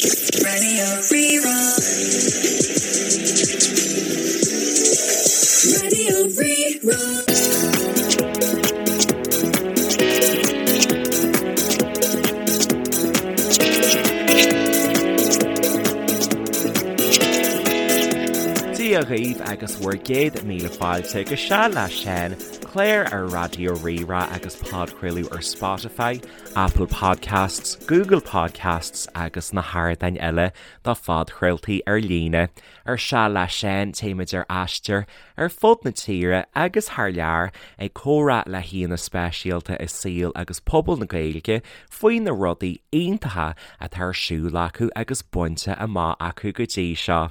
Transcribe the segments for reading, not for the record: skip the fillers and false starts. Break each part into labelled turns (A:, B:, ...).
A: Raidió Rí-Rá. Raidió Rí-Rá.
B: Dia dhaoibh agus bhur gcéad míle fáilte go Seal le Seán, clár ar Raidió Rí-Rá agus podchraoladh ar Spotify, Apple Podcasts, Google Podcasts agus na hardáin eile do phodchraoltaí ar líne. Ar Seal le Seán, téimid ar aistear ar fud na tíre agus thar lear ag comhrá le haíonna speisialta i saol agus pobal na Gaeilge faoi na rudaí iontacha atá ar siúl acu agus bainte amach acu go dtí seo.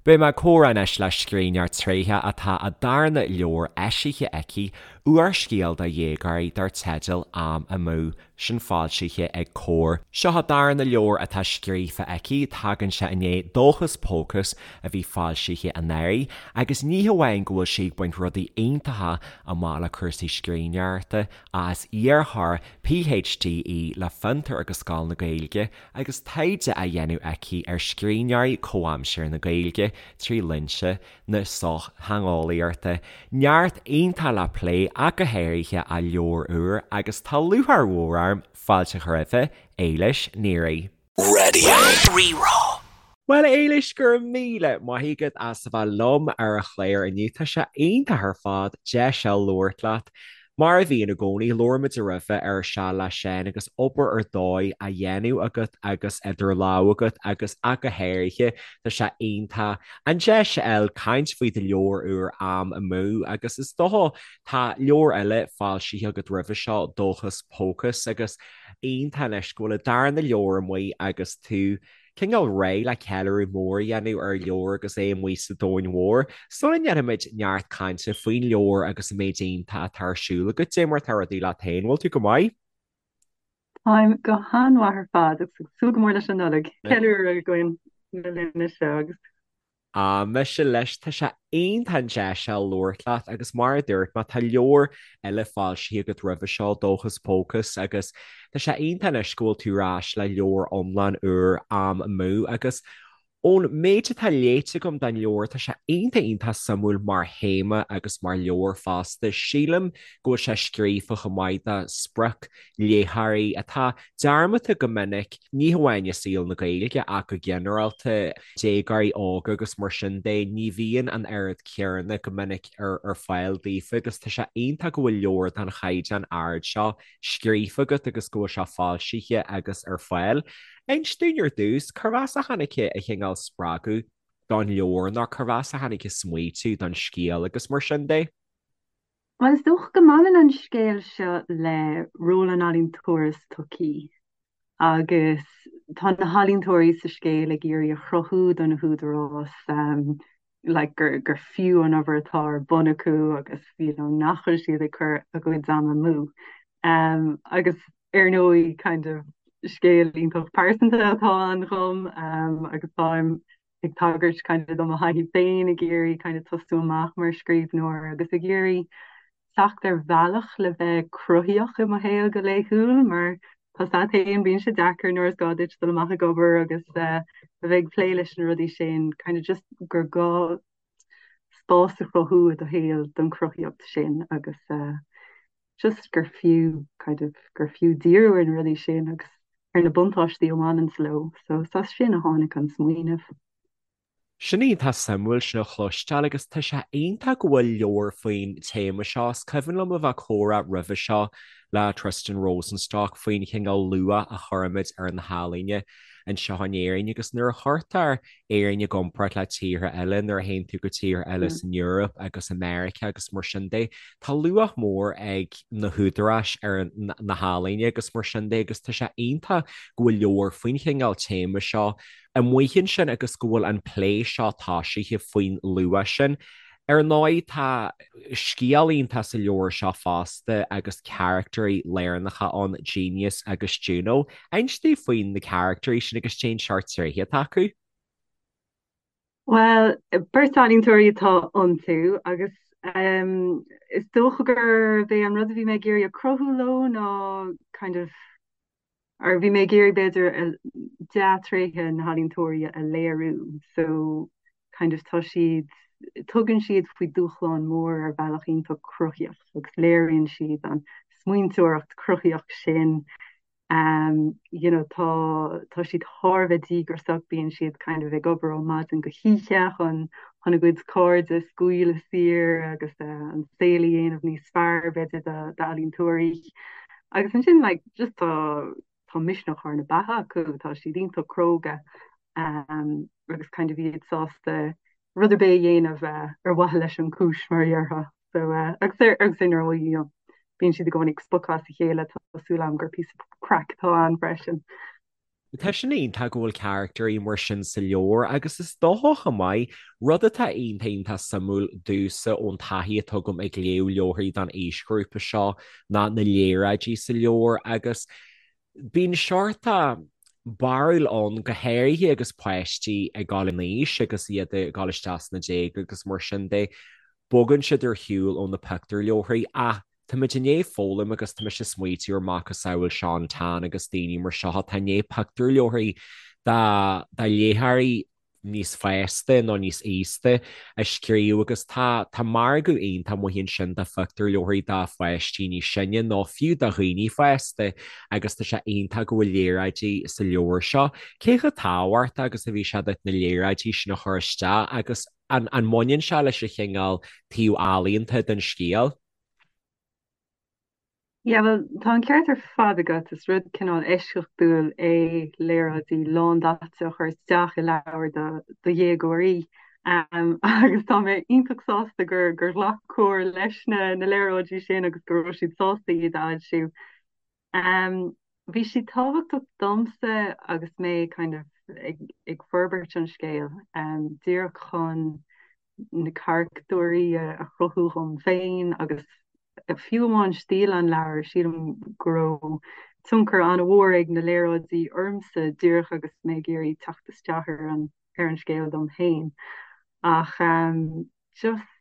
B: Beidh mé ag comhrá anois le scríbhneoir tréitheach atá a darna leabhar eisithe aici, úrscéal do dhéagóirí dar teideal Am Amú, sin foilsithe ag Comhar. Seo a darna leabhar atá scríofa aici, tagann sé i ndiaidh Dóchas Pócas a bhí foilsithe anuraidh, agus ní hamháin go bhfuil sí ag baint rudaí iontacha amach le cúrsaí scríbhneoireachta, ach is iarrthóir PhD í le Fiontar agus Scoil na Gaeilge, Agus taighde á dhéanamh aici ar scríbhneoirí comhaimseartha na Gaeilge trí lionsa na sochtheangeolaíochta, neart iontach le plé ach go háirithe a leabhar úr agus tá lúcháir mhór orm fáilte a chur roimhe, Éilis Ní Riain.
A: Raidió Rí-Rá.
B: Bhuel, a Éilis, go raibh míle maith agat as a bheith liom ar an chlár inniu. Tá sé iontach ar fad deis a labhairt leat. Mar a bhíonn i gcónaí, labhair muid roimhe ar Seal le Seán agus obair ar dóigh á dhéanamh agat agus idir lámha agat agus ach go háirithe, tá sé iontach an deis a fháil caint faoi do leabhar úr Am Amú agus is dócha tá leabhar eile foilsithe agat roimhe seo, Dóchas Pócas agus iontach anois go bhfuil an darna leabhar amuigh agus tú cineál réidh le ceiliúradh mór a dhéanamh ar an leabhar agus é amuigh sa domhan mhór. Sula ndéanfaimid neart cainte faoin leabhar agus an méid iontach atá ar siúl agat, cad é mar atá rudaí leat féin, bhfuil tú go maith?
C: Táim go han-mhaith ar fad agus ag súil go mór leis an Nollaig. Ceiliúradh againn na linne seo agus.
B: Ah, mise leis, tá sé iontach an deis seo labhairt leat agus mar a dúirt mé, tá leabhar eile foilsithe agat roimhe seo, Dóchas Pócas, agus tá sé iontach anois go bhfuil tú ar ais le leabhar iomlán úr, Am Amú, agus ón méid atá léite agam den leabhar, tá sé iontach iontach suimiúil mar théama agus mar leabhar fosta. Sílim go bhfuil sé scríofa chomh maith do spriocléitheoirí atá dearmadta go minic, ní hamháin i saol na Gaeilge ach go ginearálta, déagóirí óga agus mar sin de, ní bhíonn an oiread céanna go minic ar fáil daofa agus tá sé iontach go bhfuil leabhar den chaighdeán ard seo scríofa agat agus go bhfuil sé foilsithe agus ar fáil. Inis dúinn ar dtús, cérbh as a tháinig an cineál spreagadh don leabhar nó cérbh as a tháinig an smaoitiú don scéal agus mar sin de?
C: Bhuel, is dócha go mbaineann an scéal seo le ról an ealaíontóra sa tsochaí agus tá na healaíontóirí sa scéal ag iarraidh a chruthú do na húdaráis like gur gur fiú an obair atá ar bun acu agus you know nach bhfuil siad ag cur a gcuid ama amú. Agus ar ndóigh kind of scéal iontach pearsanta atá ann dhom agus táim ag tagairt kind of do mo thaithí féin ag iarraidh kind of tosú amach mar scríbhneoir agus ag iarraidh teacht ar bhealach le bheith cruthaíoch i mo shaol go laethúil mar tá a fhios agat féin bíonn sé deacair nuair is gá duit dul amach ag obair agus eh, a bheith ag plé leis na rudaí sin kind of just gur gá spás a chruthú i do shaol don chruthaíocht sin agus eh, just gur fiú kind of gur fiú díriú ar na rudaí sin agus ar na buntáistí a bhaineanns leo. So is as sin a tháinig an smaoineamh.
B: Sin iontach suimiúil sin a chloisteáil agus tá sé iontach go bhfuil leabhar faoin téama seo. Is cuimhin liom a bheith ag comhrá roimhe seo le Tristan Rosenstock faoin chineál luach a chuirimid ar na healaíona anseo in Éirinn agus nuair a chuirtear Éirinn i gcomparáid le tíortha eile, nuair a théann tú go tíortha eile san Eoraip agus i Meiriceá agus mar sin de, tá luach mór ag na húdaráis ar na healaíona agus mar sin de agus tá sé iontach go bhfuil leabhar faoin chineál téama seo amuigh ansin agus go bhfuil an plé seo tosaithe faoin luach sin. Ar ndóigh, tá scéal iontach sa leabhar seo fosta agus caractairí lárnacha ann, Genius agus Juno. Inis dúinn faoi na caractairí sin agus cén seort tréithe atá acu.
C: Bhuel, beirt ealaíontóirí atá iontu agus is dócha gurb é an rud a bhí mé ag iarraidh a chruthú leo ná kind of. Or bhí mé ag iarraidh b'fhéidir dea-tréithe na healaíontóirí a léiriú so kind of tá siad, tugann siad faoi dúshlán mór ar bhealach iontach cruthaíoch agus léiríonn siad an smaointeoireacht chruthaíoch sin. Um, you know, tá, tá siad thar a bheith díograiseach, bíonn siad kind of ag obair ó maidin go hoíche chun chun a gcuid cairde a scaoileadh saor agus uh, an saol a dhéanamh níos fearr b'fhéidir d'ealaíontóirí. Agus ansin like just tá tá misneach thar na beatha acu, tá siad iontach cróga um, agus kind of iad sásta rud ar bith a dhéanamh uh, ar mhaithe leis an chúis mar a déarfá. So uh, agus ar agus ar ndóigh you know, bíonn siad i gcónaí ag spochadh as a chéile tá súil agam gur píosa craic atá ann freisin.
B: Tá sin iontach go bhfuil carachtairí mar sin sa leabhar agus is dócha chomh maith, rud atá iontach iontach suimiúil domhsa ón taithí atá agam ag léamh leabharthaí don aoisghrúpa seo ná na léaráidí sa leabhar agus bíonn seort barúil ann go háirithe agus páistí ag dul in aois agus iad ag dul isteach sna déaga agus mar sin de, bogann siad ar shiúl ó na pictiúrleabharthaí ach Táimid i ndiaidh foghlaim agus tá mise ag smaoitiú ar macasamhail Sean Tan agus daoine mar seo atá i ndiaidh pictiúrleabharthaí do léitheoirí níos fásta nó níos aosta a scríobh agus tá tá margadh iontach amuigh ansin do phictiúrleabharthaí do pháistí níos sine nó fiú do dhaoine fásta agus tá sé iontach go bhfuil léaráidí sa leabhar seo. Cé chomh tábhachtach agus a bhí sé duit na léaráidí sin a chur isteach agus an an mbaineann sé leis an chineál taobh ealaíonta den scéal?
C: Yeah, bhuel, tá an ceart ar fad agat. Is rud cineál eisceachtúil é léaráidí lándaite a chur isteach i leabhar do dhéagóirí. Agus tá mé iontach sásta gur gur ghlac Comhar leis na na léaráidí sin agus go raibh siad sásta iad a fhoilsiú. Bhí siad tábhachtach domsa agus mé kind of ag ag forbairt an scéil, díreach chun na caractúirí a chruthú dhom féin agus fiú amháin stíl an leabhair, sílim go raibh tionchar an-mhór ag na léaráidí ormsa díreach agus mé ag iarraidh teacht isteach ar an ar an scéal dom féin. Ach just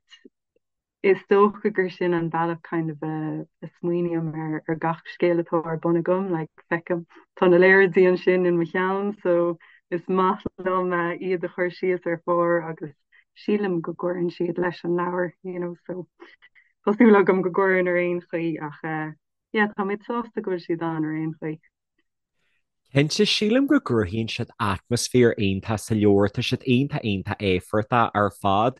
C: Is dócha gur sin an bealach kind of a smaoiním ar ar gach scéal atá ar bun agam, like feicim, tá na léaráidí ansin in mo cheann so is maith liom iad a chur síos ar phár agus sílim go gcuireann siad leis an leabhar, you know, so tá súil agam go gcuireann ar aon chaoi ach yeah tá mé sásta go bhfuil siad ann ar aon chaoi.
B: Cinnte, sílim go gcruthaíonn siad atmaisféar iontach sa leabhar, tá siad iontach iontach éifeachtach ar fad.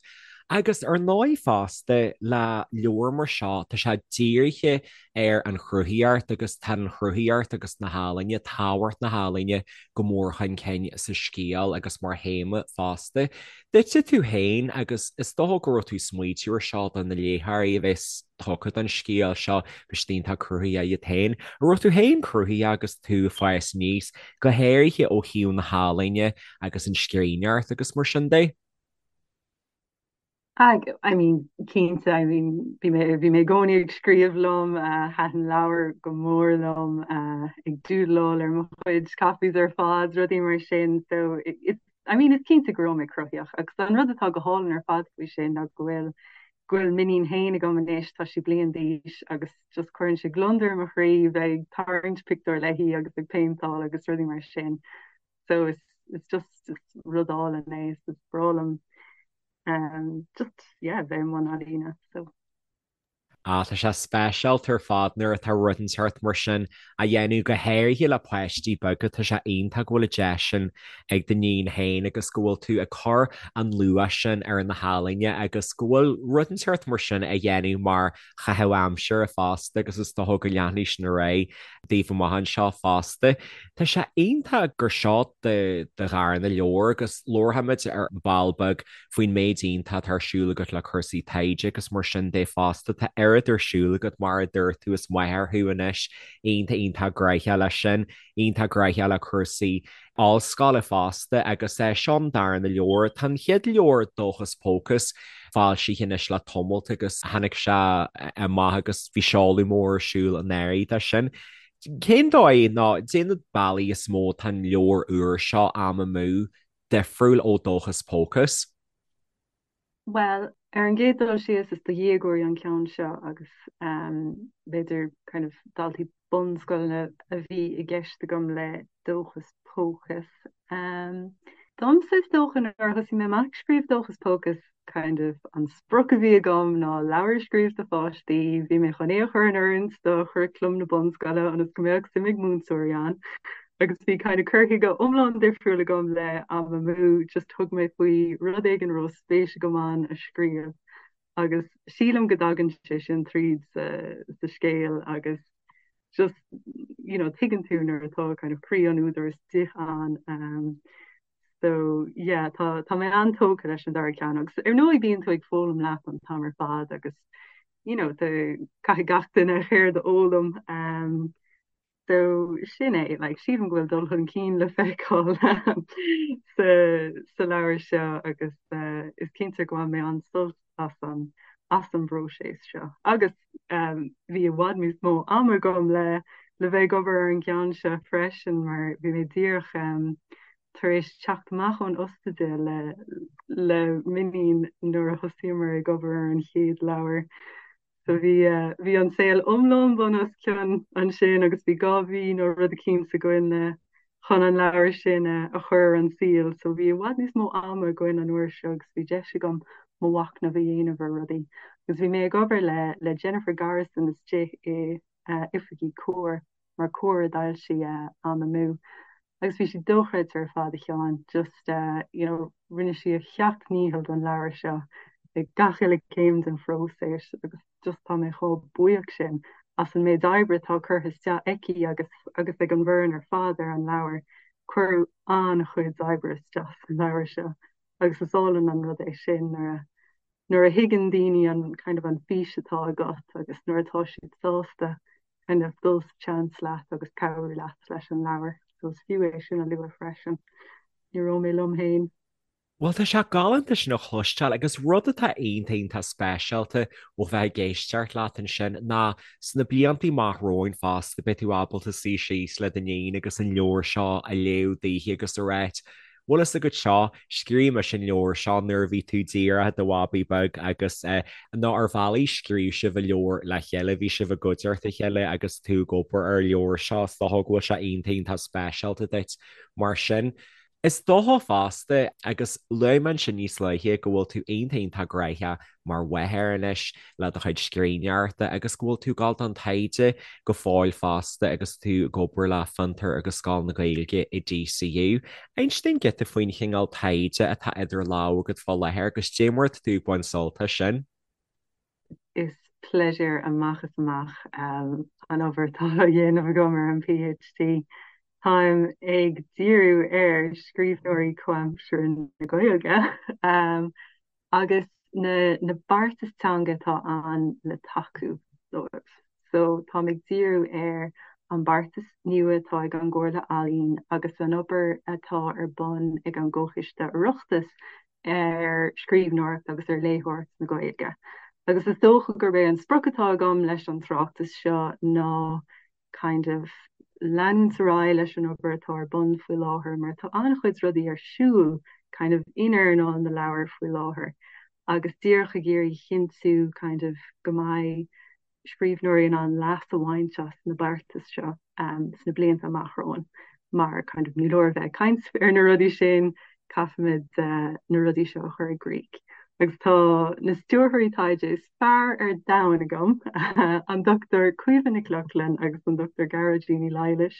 B: Agus ar ndóigh fosta, le leabhar mar seo, tá sé dírithe ar an chruthaíocht agus tá an chruthaíocht agus na healaíne, tábhacht na healaíne go mór chun cinn sa scéal agus mar théama fosta. Duitse tú féin, agus is dócha go raibh tú ag smaoitiú ar seo do na léitheoirí a bheas tugtha don scéal seo, beidh siad iontach cruthaitheach iad féin. An raibh tú féin cruthaitheach agus tú ag fás aníos, go háirithe ó thaobh na healaíne agus an scríbhneoireacht agus mar sin de?
C: I mean, cinnte, I mean, bhí mé, bhí mé i gcónaí ag scríobh liom, thaitin leabhair go mór liom, ag doodleáil ar mo chuid copies ar fad, rudaí mar sin, so it's, I mean, is cinnte go raibh mé cruthaitheach agus an rud atá go hálainn ar fad faoi sin ná go bhfuil go bhfuil m'iníon féin agam anois, tá sí bliain d'aois agus just cuireann sé gliondar i mo chroí bheith ag tarraingt pictiúr léi agus ag péinteáil agus rudaí mar sin. So it's, it's just it's rud álainn é, is breá liom um, just yeah, bheith i mbun ealaíne. So.
B: Ah, tá sé speisialta ar fad nuair atá rud inteacht mar sin á dhéanamh, go háirithe le páistí beaga. Tá sé iontach go bhfuil an deis sin ag d'iníon féin agus go bhfuil tú ag cur an luach sin ar na healaíona agus go bhfuil rud inteacht mar sin á dhéanamh mar chaitheamh aimsire fosta agus is dócha go leanfaidh sin ar aghaidh daoibh amach anseo fosta. Tá sé iontach gur seo do dharna leabhar agus labharfaimid ar ball beag faoin méid iontach atá ar siúl agat le cúrsaí taighde agus mar sin de fosta. Tá oiread ar siúl agat, mar a dúirt tú, is máthair thú anois, iontach iontach gnóthach leis sin, iontach gnóthach le cúrsaí ollscoile fosta agus seo an darna leabhar. Tá an chéad leabhar, Dóchas Pócas, foilsithe anois le tamalt agus tháinig sé amach agus bhí seoladh mór ar siúl anuraidh de sin. Cén dóigh nó cad é na bealaí is mó atá an leabhar úr seo, Am Amú, difriúil ó Dóchas Pócas?
C: Bhuel, Ar an gcéad dul síos, is do dhéagóirí an ceann seo agus b'fhéidir kind of daltaí bunscoileanna a bhí i gceist agam le Dóchas Pócas. Domsa is dócha nuair a thosaigh mé amach ag scríobh Dóchas Pócas kind of an sprioc a bhí agam ná leabhar a scríobh do pháistí, bhí mé chun é a chur in oiriúint do churaclam na bunscoile ionas go mbeadh suim ag múinteoirí ann. Agus bhí kind of cur chuige iomlán difriúil agam le Am Amú, just thug mé faoi rud éigin a raibh spéis agam ann a scríobh agus sílim go dtagann sé sin tríd sa, sa scéal agus just, you know, tuigeann tú nuair atá kind of croí an údair istigh ann. Um, so yeah, tá, tá mé an-tógtha leis an dara ceann agus ar ndóigh bíonn tú ag foghlaim leat an t-am ar fad agus you know, caithfidh gach duine a cheird a fhoghlaim. Um, So sin é, like, sílim go bhfuil dul chun cinn le feiceáil sa, sa leabhar seo agus uh, is cinnte go bhain mé an-sult as an, as an bpróiseas seo. Agus um, bhí i bhfad níos mó ama agam le, le bheith ag obair ar an gceann seo freisin mar bhí mé díreach um, tar éis teacht amach ón ospidéal le, le m'iníon nuair a thosaíomar ag obair ar an chéad leabhar. So bhí, bhí an saol iomlán bun os cionn ansin agus bhí 2 mhí nó rud eicínt againn le chun an leabhar sin a chur ar an saol. So bhí i bhfad níos mó ama againn an uair seo agus bhí deis agam mo mhachnamh a dhéanamh ar rudaí. Agus bhí mé ag obair le le Jennifer Garrison istigh i oifigí Comhar mar Comhar a d'fhoilsigh Am Amú. Agus bhí sí dochreidte ar fad, a Sheáin, just you know rinne sí a seacht ndícheall don leabhar seo ag gach uile céim den phróiseas agus just tá mé chomh buíoch sin as an méid oibre atá curtha isteach aici agus agus ag an bhfoireann ar fad ar an leabhar. Cuireadh an-chuid oibre isteach sa leabhar seo agus is álainn an rud é sin nuair a nuair a thuigeann daoine an kind of an fís atá agat agus nuair atá siad sásta kind of dul sa tseans leat agus cabhrú leat leis an leabhar. So is fiú é sin a lua freisin. Ní raibh mé liom féin.
B: Bhuel, tá sé galánta sin a chloisteáil agus rud atá iontach iontach speisialta ó bheith ag éisteacht leat ansin ná sna blianta amach romhainn fosta beidh tú ábalta suí síos le d'iníon agus an leabhar seo a léamh daoithi agus a ráit Bhfuil fhios agat seo, scríobh mise an leabhar seo nuair a bhí tú díreach i do bhabaí beag agus nó ar bhealaí scríobh sibh an leabhar le chéile, bhí sibh i gcuideachta a chéile agus tú ag obair ar an leabhar seo, is dócha go bhfuil sé iontach iontach speisialta duit mar sin. Is dócha fosta, agus luaigh mé ansin níos luaithe go bhfuil tú iontach iontach gnóthach mar mháthair anois le do chuid scríbhneoireachta agus go bhfuil tú ag dul don taighde go fóill fosta agus tú ag obair le Fiontar agus Scoil na Gaeilge i DCU. Inis dúinn giota faoin chineál taighde atá idir lámha agat fá láthair agus cad é mar atá tú ag baint sult as sin.
C: Is pléisiúr amach is amach an obair atá á dhéanamh agam ar an PhD. Táim ag díriú ar scríbhneoirí comhaimseartha na Gaeilge agus na na beartais teanga atá ann le tacú dóibh. So táim ag díriú ar an beartas nua atá ag an gComhairle Ealaíon agus an obair atá ar bun ag an gComhchoiste Oireachtais ar scríbhneoireacht agus ar léitheoireacht na Gaeilge. Agus is dócha gurb é an sprioc atá agam leis an tráchtas seo ná kind of leanúint ar aghaidh leis an obair atá ar bun faoi láthair mar tá an-chuid rudaí ar siúl kind of in earnáil na leabhar faoi láthair agus díreach ag iarraidh a chinntiú kind of go mbeidh scríbhneoirí in ann leas a bhaint as na beartais seo um, sna blianta amach romhainn mar kind of ní leor a bheith ag caint ar na rudaí sin caithfimid uh, na rudaí seo a chur i gcrích. Agus tá na stiúrthóirí taighde is fearr ar domhan agam, an Dr Caoimhe Nic Lochlainn agus an Dr Gearóidín Ní Laighléis,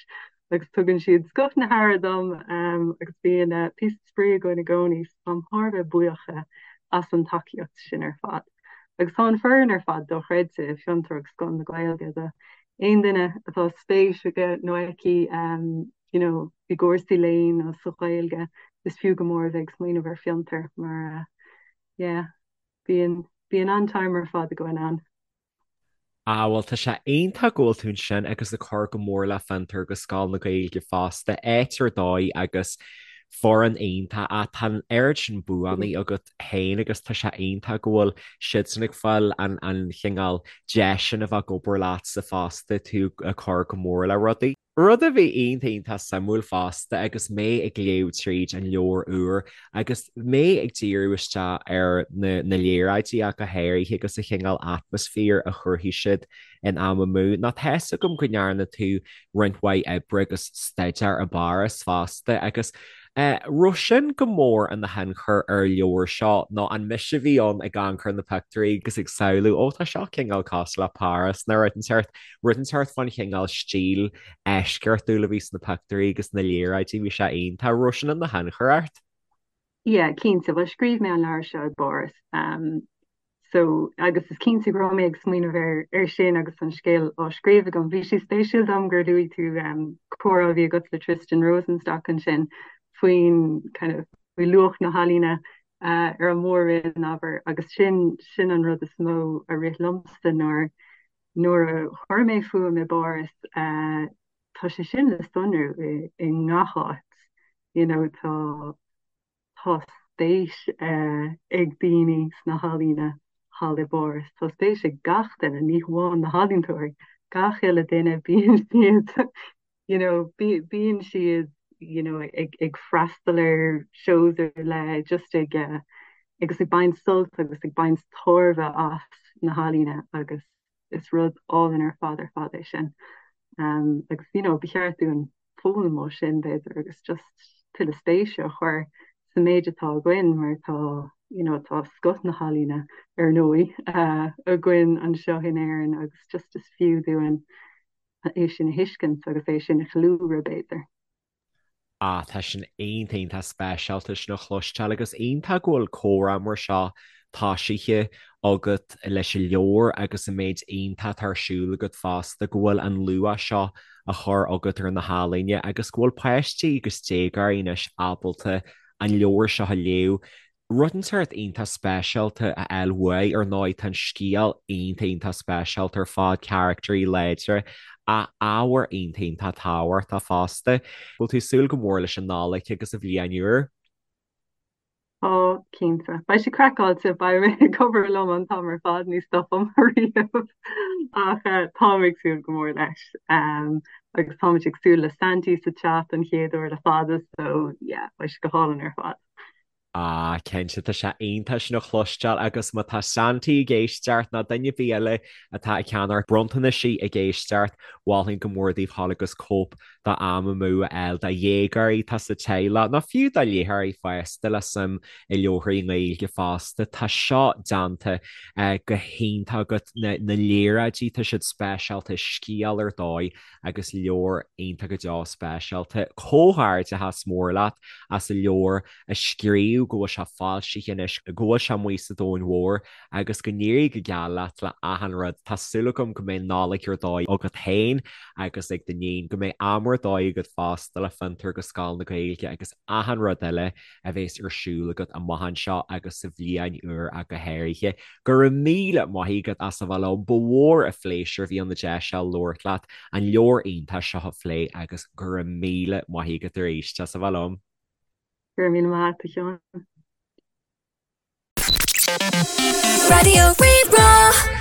C: agus tugann siad scoth na haire dom agus bíonn píosa spraoi againn i gcónaí, so táim thar a bheith buíoch as an tacaíocht sin ar fad. Agus tá an foireann ar fad dochreidte i Fiontar agus Scoil na Gaeilge, do aon duine atá spéis aige nó aici you know, i gcúrsaí léinn nó sa Ghaeilge, is fiú go mór a bheith ag smaoineamh ar Fiontar mar yeah, Bíonn, bíonn an-time ar fad againn ann.
B: Ah bhuel tá sé iontach go bhfuil tú ansin agus ag cur go mór le Fiontar agus Scoil na Gaeilge fosta, áit ar dóigh agus foireann iontach ach tá an oiread sin buanna agat féin agus tá sé iontach go bhfuil siadsan ag fáil an an chineál deis sin a bheith ag obair leatsa fosta, tú ag cur go mór le rudaí. Rud a bhí iontach iontach suimiúil fosta agus mé ag léamh tríd an leabhar úr agus mé ag díriú isteach ar na na léaráidí ach go háirithe agus an chineál atmaisféar a chruthaigh siad in Am Amú ná tá 'fhios agam go ndearna tú roinnt mhaith oibre agus staidéar i bPáras fosta agus raibh sin go mór ina thionchar ar an leabhar seo nó an mise a bhí ann ag amharc ar na pictiúirí agus ag samhlú ó tá seo cineál cosúil le Páras nó rud inteacht, rud inteacht fán chineál stíl eisceachtúil a bhí sna pictiúirí agus na léaráidí, bhí sé iontach. Raibh sin ina thionchar ort?
C: Yeah, cinnte. Bhuel, scríobh mé an leabhar seo i bPáras. So, agus is cinnte go raibh mé ag smaoineamh ar ar sin agus an scéal á scríobh agam. Bhí sé spéisiúil dom gur luaigh tú comhrá a bhí agat le Tristan Rosenstock ansin faoin kind of faoi luach na healaíne ar an mór-roinn, abair, agus sin sin an rud is mó a rith liomsa nuair nuair a chuir mé fúm i bPáras, tá sé sin le sonrú i i ngach áit, you know, tá Tá spéis ag daoine sna healaíona thall i bPáras. Tá spéis ag gach duine, ní hamháin na healaíontóirí, gach uile duine, bíonn siad you know bíonn siad you know ag ag freastal ar shows ar leith, just ag agus ag baint sult agus ag baint tairbhe as na healaíona agus is rud álainn ar fad ar fad é sin. Agus you know ba cheart dúinn foghlaim ó sin, b'fhéidir, agus just tuilleadh spéise a chur sa méid atá againn mar tá, you know, tá scoth na healaíne, ar ndóigh, againn anseo in Éirinn agus just is fiú dúinn é sin a thuiscint agus é sin a cheiliúradh, b'fhéidir.
B: Ah, tá sin iontach, iontach speisialta sin a chloisteáil agus iontach go bhfuil comhrá mar seo tosaithe agat leis an leabhar agus an méid iontach atá ar siúl agat fosta, go bhfuil an luach seo á chur agat ar na healaíona agus go bhfuil páistí agus déagóirí anois ábalta an leabhar seo a léamh. Rud inteacht iontach speisialta a fháil uaidh, ar ndóigh tá an scéal iontach iontach speisialta ar fad, caractairí láidre, ach ábhar iontach iontach tábhachtach fosta. Bhfuil tú ag súil go mór leis an Nollaig agus an Bhliain Úr?
C: Tá, cinnte. Beidh sé craiceáilte, beidh mé ag obair liom an t-am ar fad, ní stopaim riamh. Ach táim ag súil go mór leis. Agus táimid ag súil le Santy sa teach don chéad uair le fada, so yeah, beidh sé go hálainn ar fad.
B: Ah, cinnte, tá sé iontach sin a chloisteáil agus má tá Santy ag éisteacht nó duine ar bith eile atá ag ceannacht bronntanaisí ag éisteacht, mholfainn go mór daoibh dhul agus cóip de Am Amú a fháil do dhéagóirí atá sa teaghlach, nó fiú do léitheoirí fásta le suim i leabharthaí Gaeilge fosta. Tá seo déanta go hiontach agat, na léaráidí, tá siad speisialta, scéal ar dóigh agus leabhar iontach go deo speisialta. Comhghairdeachas mór leat as an leabhar a scríobh, go bhfuil sé foilsithe anois, go bhfuil sé amuigh sa domhan mhór agus go n-éirí go geal leat le achan rud. Tá súil agam go mbeidh Nollaig ar dóigh agat féin agus ag d'iníon, go mbeidh am ar dóigh agat fosta le Fiontar agus Scoil na Gaeilge agus achan rud eile a bhéas ar siúl agat amach anseo agus sa bhliain úr ach go háirithe. Go raibh míle maith agat as a bheith liom. Ba mhór an phléisiúr a bhí ann an deis seo labhairt leat, an leabhar iontach seo a phlé agus go raibh míle maith agat arís as a bheith liom.
C: Go raibh míle maith agat, a Sheáin.
A: Raidió Rí-Rá.